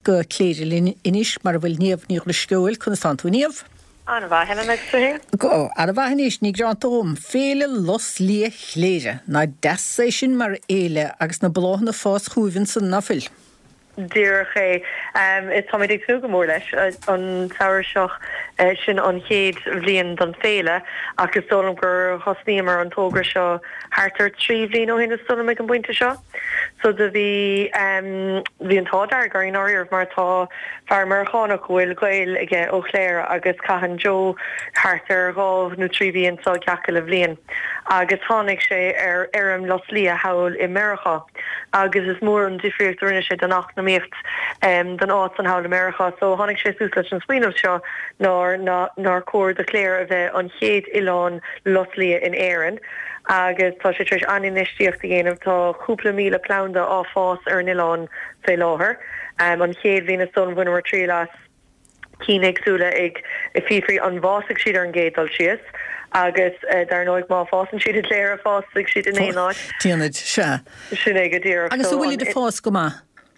go Cléire linn anois mar a bhfuil Niamh Ní Dhrisceoil. Conas tánn tú a Niamh? An-mhaith, Helen, agus tú fhéin? Go han-mhaith anois, ní gearánta dhom. Féile Lus Liath Chléire. Nach deas é sin mar fhéile agus na bláthanna ag fás chugaibh ansan, ná fuil? Díreach é. Táimid ag tnúth go mór leis. An samhradh seo, sin an chéad bhliain don féile ach is dóigh liom gur thosnaíomar an togra seo thart ar 3 bhliain ó shin is dóigh liom ag an bpointe seo. So do bhí, bhí an t-ádh dearg orainn i ndáiríribh mar tá fear Meiriceánach a bhfuil gaol aige ó Chléire agus caitheann Joe thart ar dhá nó trí mhí anso gach uile bhliain agus tháinig sé ar fheirm lus liath thall i Meiriceá agus is mór an difríocht a rinne sé don eacnamaíocht don áit san thall i Meiriceá. So tháinig sé suas leis an smaoineamh seo nár nár chóir do Chléire a bheith an chéad oileán lus liath in Éirinn. agus tá sé tar éis an-infheistíocht a dhéanamh. Tá cúpla 1,000 planda á fás ar an oileán fé láthair. An chéad bhliain is dóigh liom bhaineamar triail as cinn éagsúla ag fiafraí an bhfásfaidh siad ar an gcéad dul síos agus dar ndóigh má fásann siad i gCléire fásfaidh siad in aon áit. Déanfaid, sea. Sin é go díreach. Agus an bhfuilid ag fás go maith?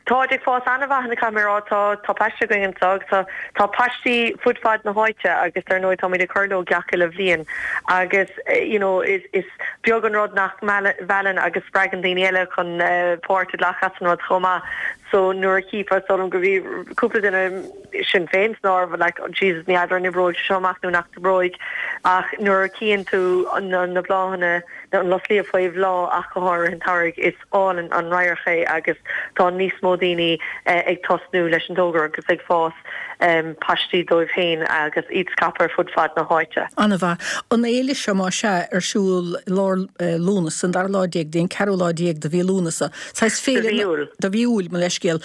Táid ag fás an-mhaith, caithfidh mé a rá. Tá, tá paiste againn anso agus tá, tá paistí fud fad na háite agus dar ndóigh táimid ag cur leo gach uile bhliain agus you know is, is beag an rud nach meallann agus spreagann daoine eile chun páirt a ghlacadh as an rud chomh maith. So nuair a chífeá, is dóigh liom go bhí cúpla duine, sinn féin san áireamh, like oh Jesus ní fheadar an oibreoidh sé seo amach nó nach n-oibreoidh ach nuair a chíonn tú na, na bláthanna, an lus liath faoi bhláth ach go háirithe an tsamhraidh is, álainn an radharc é agus tá níos mó daoine ag tosnú leis an dtogra agus ag fás paistí dóibh féin agus iad scaipthe ar fud fad na háite. An-mhaith. An fhéile seo, más ea, ar siúl i lár Lúnasa, an dara lá déag go dtí an ceathrú lá déag de mhí Lúnasa. Saghas féile. De mhí Iúil. De mhí Iúil, mo leithscéal.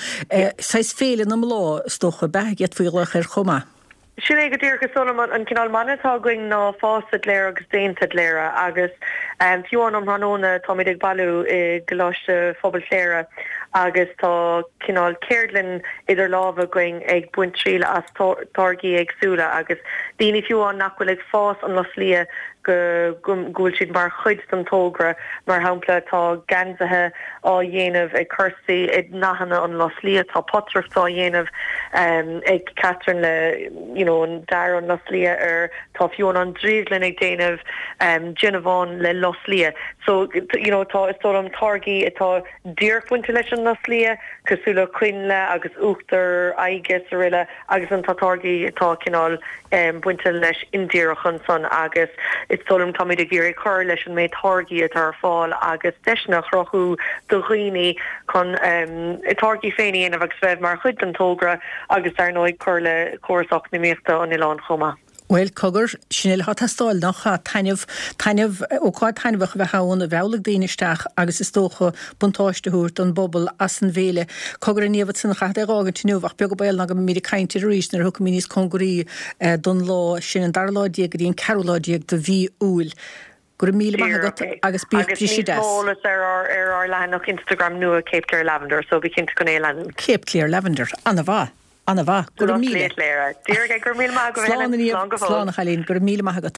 Saghas féile na mbláth, is dócha, ab ea, d'fhéadfaí a ghlaoch air chomh maith. Sin é go díreach. Is dóigh liom an cineál mana atá againn ná fásta i gCléire agus déanta i gCléire agus fiú amháin um thráthnóna táimid ag bailiú i gColáiste Phobail Chléire agus tá cineál ceardlann idir lámha againn ag baint triail as táirgí éagsúla agus daoine fiú amháin nach bhfuil ag fás an lus liath go go bhfuil siad mar chuid den togra. Mar shampla tá geansaithe á dhéanamh ag Kirsty i ndathanna an lus liath, tá potaireacht á dhéanamh ag Catherine le you know an dath an lus liath air, tá fiú amháin an drioglann ag déanamh déanamhán le lus liath. So you know tá is dóigh liom táirgí atá díreach bainte leis an lus liath cosúil le coinnle agus uachtar aghaidhe is aroile. Agus ansan tá táirgí atá cineál bainte leis indíreach ansan agus is dóigh liom táimid ag iarraidh cur leis an méid táirgí atá ar fáil agus deiseanna a chruthú do dhaoine chun a dtáirgí féin a dhéanamh agus bheith mar chuid den togra agus dar ndóigh cur le córas eacnamaíochta an oileáin chomh maith. Bhuel, cogar, sin uile atá ag teastáil, nach ea? Taitneamh, taitneamh, ócáid taitneamhach a bheith ann, a mheallfaidh daoine isteach agus is dócha buntáiste a thabhairt don bpobal as an bhféile. Cogar, a Niamh, ansan, caithfead é a dh'fhágaint inniu ach beag an baol ná go mbeimid ag caint air arís nuair a thiocfaimid níos cóngaraí don lá sin, an dara lá déag go dtí an ceathrú lá déag de mhí Iúil. Go raibh míle maith agat agus bíodh Agus briseadh níos deas. mó eolas ar ár ar ár leathanach Instagram nua Cape Clear Lavender, so bí cinnte chun é a leanúint. Cape Clear Lavender. Ana-mhaith. Ana-mhaith. Go raibh míle. Cléire. Díreach é. Go raibh míle maith agat, Slán Helen. a Niamh. Slán go fóill. Slán a chailín. Go raibh míle maith agat.